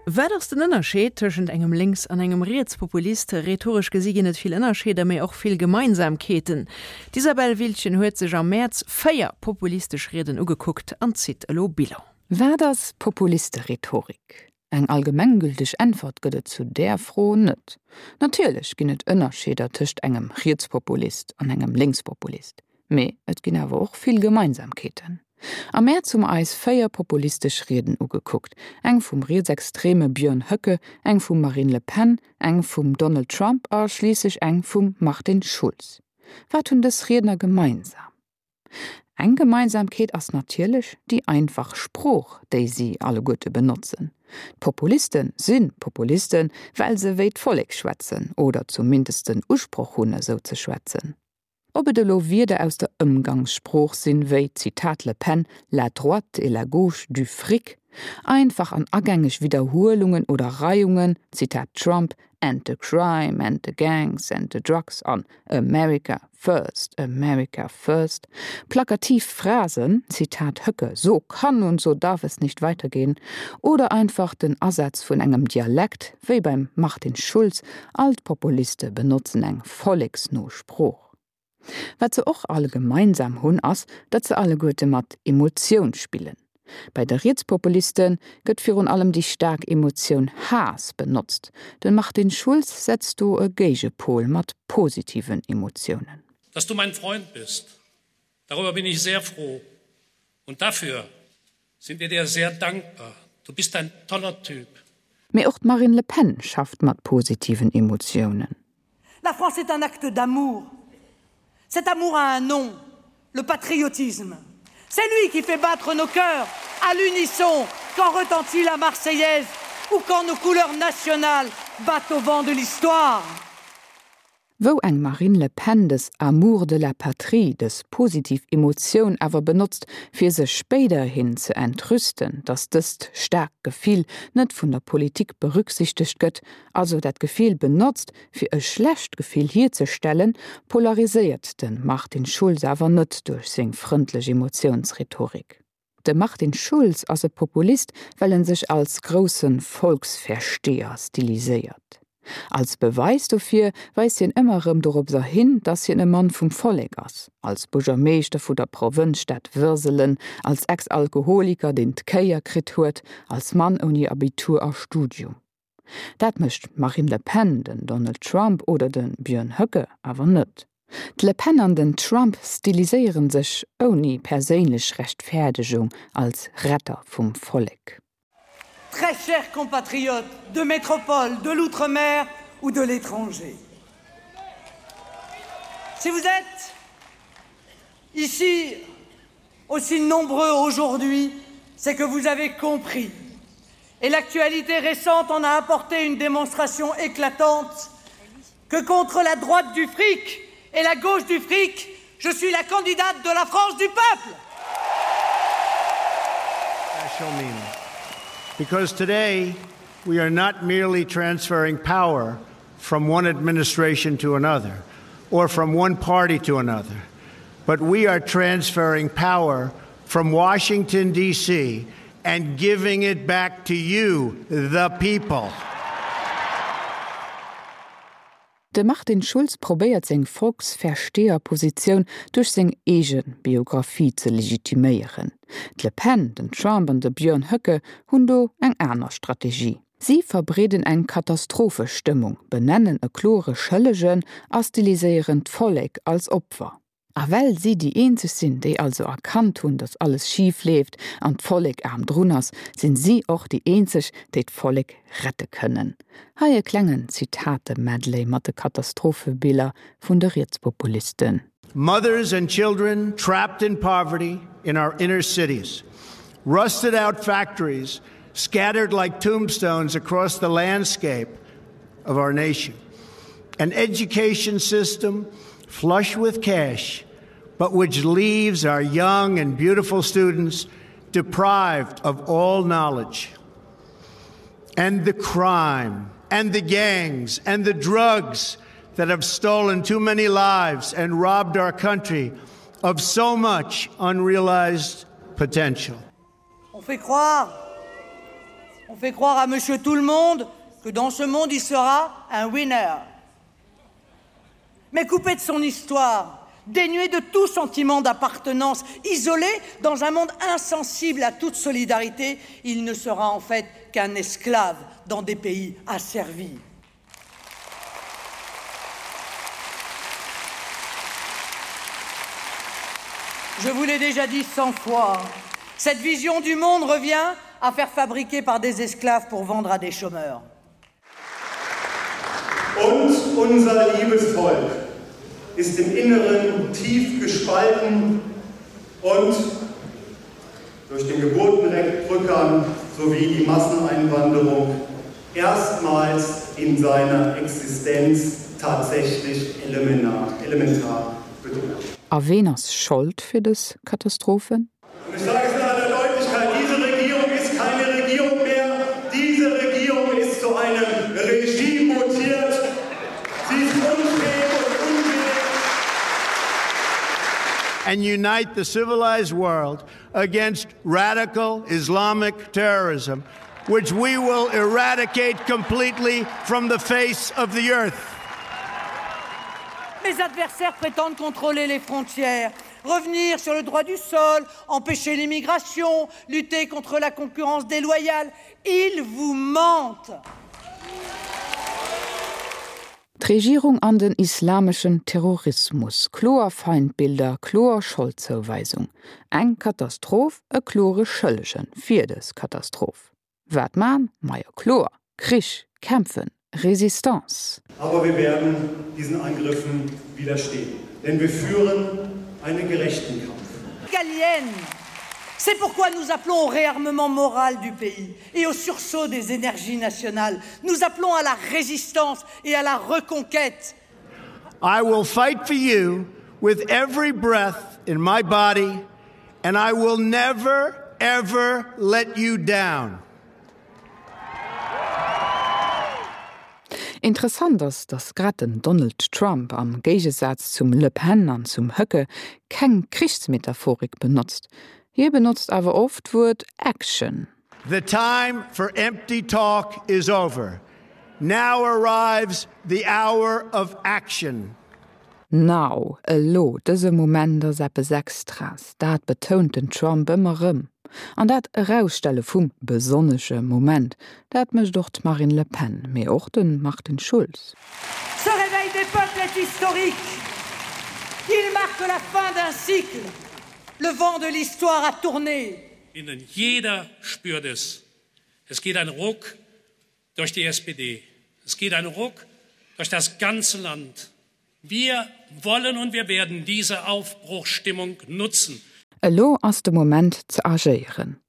Wat ass den Ënnerscheed tëschent engem Lénks an engem Rietspopulist? Rhetoresch gesi ginn et vill Ënnerscheeder, mee och vill Gemeinsamkeeten. D'Isabelle Wiltgen huet sech am Mäerz 4 populistesch Rieden ugekuckt an zitt elo Bilan. Wat ass Populisterhetorik? Eng allgemenggülteg Äntwert gëtt et zu där Fro net. Natierlech ginn et Ënnerscheeder tëscht engem Rietspopulist an engem Lénkspopulist, mee et ginn awer och vill Gemeinsamkeeten. Am Mäerz hu mer eis 4 populistesch Rieden ugekuckt, eng vum rietsextreme Björn Höcke, eng vum Marine Le Pen, eng vum Donald Trump a schliisslech eng vum Martin Schulz. Wat hunn dës Riedner gemeinsam? Eng Gemeinsamkeet ass natierlech déi einfach Sprooch, déi si alleguerte benotzen. D'Populiste si Populisten, well se wéi d'Vollek schwätzen oder zumindest den Usproch hunn, esou ze schwätzen. Ob et elo Wierder aus der Ëmgangssprooch sinn, wéi, Zitat Le Pen, la droite et la gauche du fric, einfach an agängeg Widderhuelungen oder Reiungen, Zitat Trump, and the crime and the gangs and the drugs an America first, America first, plakativ Phrasen, Zitat Höcke, so kann und so darf es nicht weitergehen, oder einfach den Asaz vun engem Dialekt, wéi beim Martin Schulz, all d'Populiste benotzen eng volleksno Sprooch. Wat se och all gemeinsam hunn, ass, datt se alleguerte mat Emotioun spillen. Bei de Rietspopuliste gëtt virun allem déi staark Emotioun Haass benotzt. De Martin Schulz setzt do e Géigepol mat positiven Emotiounen. Dass du mein Freund bist, darüber bin ich sehr froh und dafür sind wir dir sehr dankbar. Du bist ein toller Typ. Mee och d'Marine Le Pen schafft mat positiven Emotiounen. La France est un acte d'amour. Cet amour a un nom, le patriotisme. C'est lui qui fait battre nos cœurs à l'unisson quand retentit la Marseillaise ou quand nos couleurs nationales battent au vent de l'histoire. Wou eng Marine Le Pen dës Amour de la patrie, dës positiv Emotioun awer benotzt, fir sech spéiderhin ze entrüsten, datt dëst staarkt Gefill net vun der Politik berücksichtegt gëtt, also dat Gefill benotzt, fir e schlecht Gefill hierzestellen, polariséiert de Martin Schulz awer net duerch seng frëndlech Emotiounsrhetorik. De Martin Schulz ass e Populist, well en sech als grousse Volksversteher stiliséiert. Als Beweis dofir weist hien ëmmer erëm doropser hin, datt hien e Mann vum Vollek ass, als Buergermeeschter vu der Provënzstad Würselen, als Ex-Alkoholiker, deen d'Kéier kritt huet, als Mann ouni Abitur a Studium. Dat mécht d'Marine Le Pen, den Donald Trump oder de Björn Höcke awer net. D'Le Pen an den Trump stiliséiere sech ouni perséinlech Rechtfäerdegung als Retter vum Vollek. Très chers compatriotes de métropole, de l'outre-mer ou de l'étranger. Si vous êtes ici aussi nombreux aujourd'hui, c'est que vous avez compris et l'actualité récente en a apporté une démonstration éclatante que contre la droite du fric et la gauche du fric, je suis la candidate de la France du peuple. Because today we are not merely transferring power from one administration to another or from one party to another, but we are transferring power from Washington DC and giving it back to you, the people. De Martin Schulz probéiert seng Volksversteherpositioun duerch seng eege Biographie ze legitiméieren. D'Le Pen, den Trump an de Björn Höcke hunn do eng aner Strategie. Si verbreeden eng Katastrophestëmmung, benennen e klore Schëllegen a stiliséieren d'Vollek als Opfer. A well si déi eenzeg sinn, déi also erkannt hunn, datt alles schif leeft an d'Vollek aarm drun ass, sinn si och déi eenzeg, déi d'Vollek rette kënnen. Hei e klengen Zitate-Medley mat de Katastrophebiller vun de Rietspopulisten. Mothers and children trapped in poverty in our inner cities, rusted out factories scattered like tombstones across the landscape of our nation. An education system flush with cash, but which leaves our young and beautiful students deprived of all knowledge. And the crime and the gangs and the drugs that have stolen too many lives and robbed our country of so much unrealized potential. On fait croire. On fait croire à monsieur tout le monde que dans ce monde il sera un winner. Mais coupé de son histoire, dénué de tout sentiment d'appartenance, isolé dans un monde insensible à toute solidarité, il ne sera en fait qu'un esclave dans des pays asservis. Je vous l'ai déjà dit 100 fois, cette vision du monde revient à faire fabriquer par des esclaves pour vendre à des chômeurs. Und unser liebes Volk ist im Inneren tief gespalten und durch den Geburtenrückgang sowie die Masseneinwanderung erstmals in seiner Existenz tatsächlich elementar, elementar bedroht. A ween ass Schold fir dës Katastrophen? Und ich sage es in aller Deutlichkeit, diese Regierung ist keine Regierung mehr. Diese Regierung ist zu einem Regime mutiert. Sie ist unfähig und unwillig. And unite the civilized world against radical Islamic terrorism, which we will eradicate completely from the face of the earth. Mes adversaires prétendent contrôler les frontières, revenir sur le droit du sol, empêcher l'immigration, lutter contre la concurrence déloyale. Ils vous mentent. D'Regierung an den islameschen Terrorismus, kloer Feindbilder, kloer Scholdzouweisung. Eng Katastroph, e klore Schëllegen fir dës Katastroph. Wat man? Majo kloer, Krich, kämpfen, Résistance. Aber wir werden diesen Angriffen widerstehen, denn wir führen einen gerechten Kampf. Gallienne. C'est pourquoi nous appelons au réarmement moral du pays et au sursaut des énergies nationales. Nous appelons à la résistance et à la reconquête. I will fight for you with every breath in my body and I will never ever let you down. Interessant ass, datt grad den Donald Trump, am Géigesaz zum Le Pen an zum Höcke, keng Krichsmetaphorik benotzt. Hie benotzt awer oft d'Wuert Action. The time for empty talk is over. Now arrives the hour of action. Now, elo, dëse Moment ass eppes Extraes, dat betount den Trump ëmmer erëm. An dat Erausstelle vum besonnesche Moment, dat mécht och d'Marine Le Pen, mee och de Martin Schulz. Ce réveil des peuples est historique. Il marque la fin d'un cycle. Le vent de l'histoire a tourné. Innen jeder spürt es. Es geht ein Ruck durch die SPD. Es geht ein Ruck durch das ganze Land. Wir wollen und wir werden diese Aufbruchstimmung nutzen. Elo ass de Moment ze agéieren.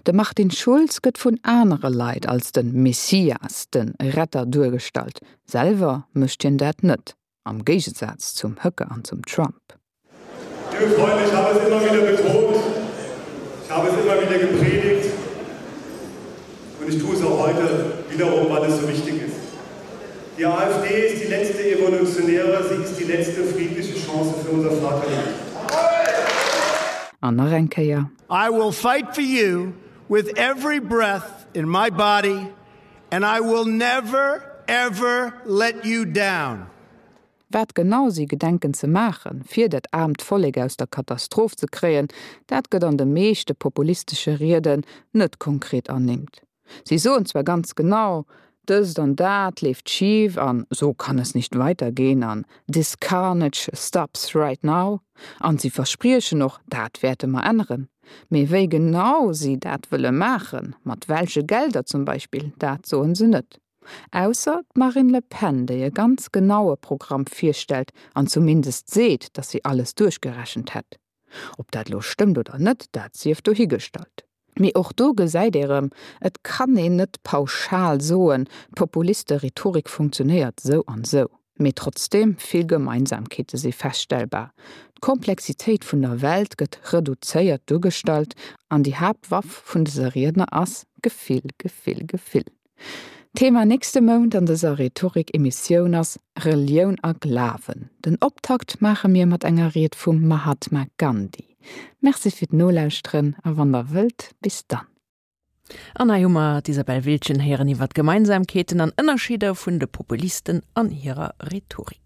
De Martin Schulz gëtt vun anere Leit als de Messias, de Retter duergestallt. Selwer mécht hien dat net, am Géigesaz zum Höcke an zum Trump. Liebe Freunde, ich habe es immer wieder betont, ich habe es immer wieder gepredigt und ich tue es auch heute wiederum, weil es so wichtig ist. Die AfD ist die letzte evolutionäre, sie ist die letzte friedliche Chance für unser Vaterland. An nach eng Kéier. I will fight for you with every breath in my body and I will never ever let you down. Wat genau si gedenken ze maachen, fir dat aarmt Vollek aus der Katastroph ze kréien, dat gëtt an de meeschte populistesche Rieden net konkret ernimmt. Si soen zwar ganz genau, dëst an dat leeft schif an so kann es nicht weitergehen an this carnage stops right now an si verspriechen och, dat wäerte mer änneren. Mee wéi genau si dat wëlle maachen, mat welche Gelder zum Beispill, dat soen se net. Ausser d'Marine Le Pen, déi e ganz genaue Programm virstellt an zumindest seet, datt si alles duerchgerechent hätt. Ob dat elo stëmmt oder net, dat sief dohigestallt. Mee och do gesäit ee rëm, et kann een net pauschal soen, d'Populiste-Rhetorik funktionéiert sou an sou. Mee trotzdeem, vill Gemeinsamkeete si feststellbar. D'Komplexitéit vun der Welt gëtt reduzéiert duergestallt an déi Haaptwaff vun dëse Riedner ass Gefill, Gefill, Gefill. Thema nächste Mount an dëser Rhetorik-Emissioun ass Relioun a Glawen. Den Optakt maache mir mat enger Ried vum Mahatma Gandhi. Merci fir d'Nolauschteren a wann der wëllt, bis dann. An hei hu mer d'Isabelle Wiltgen héieren iwwer d'Gemeinsamkeeten an Ënnerscheeder vun de Populisten an hirer Rhetorik.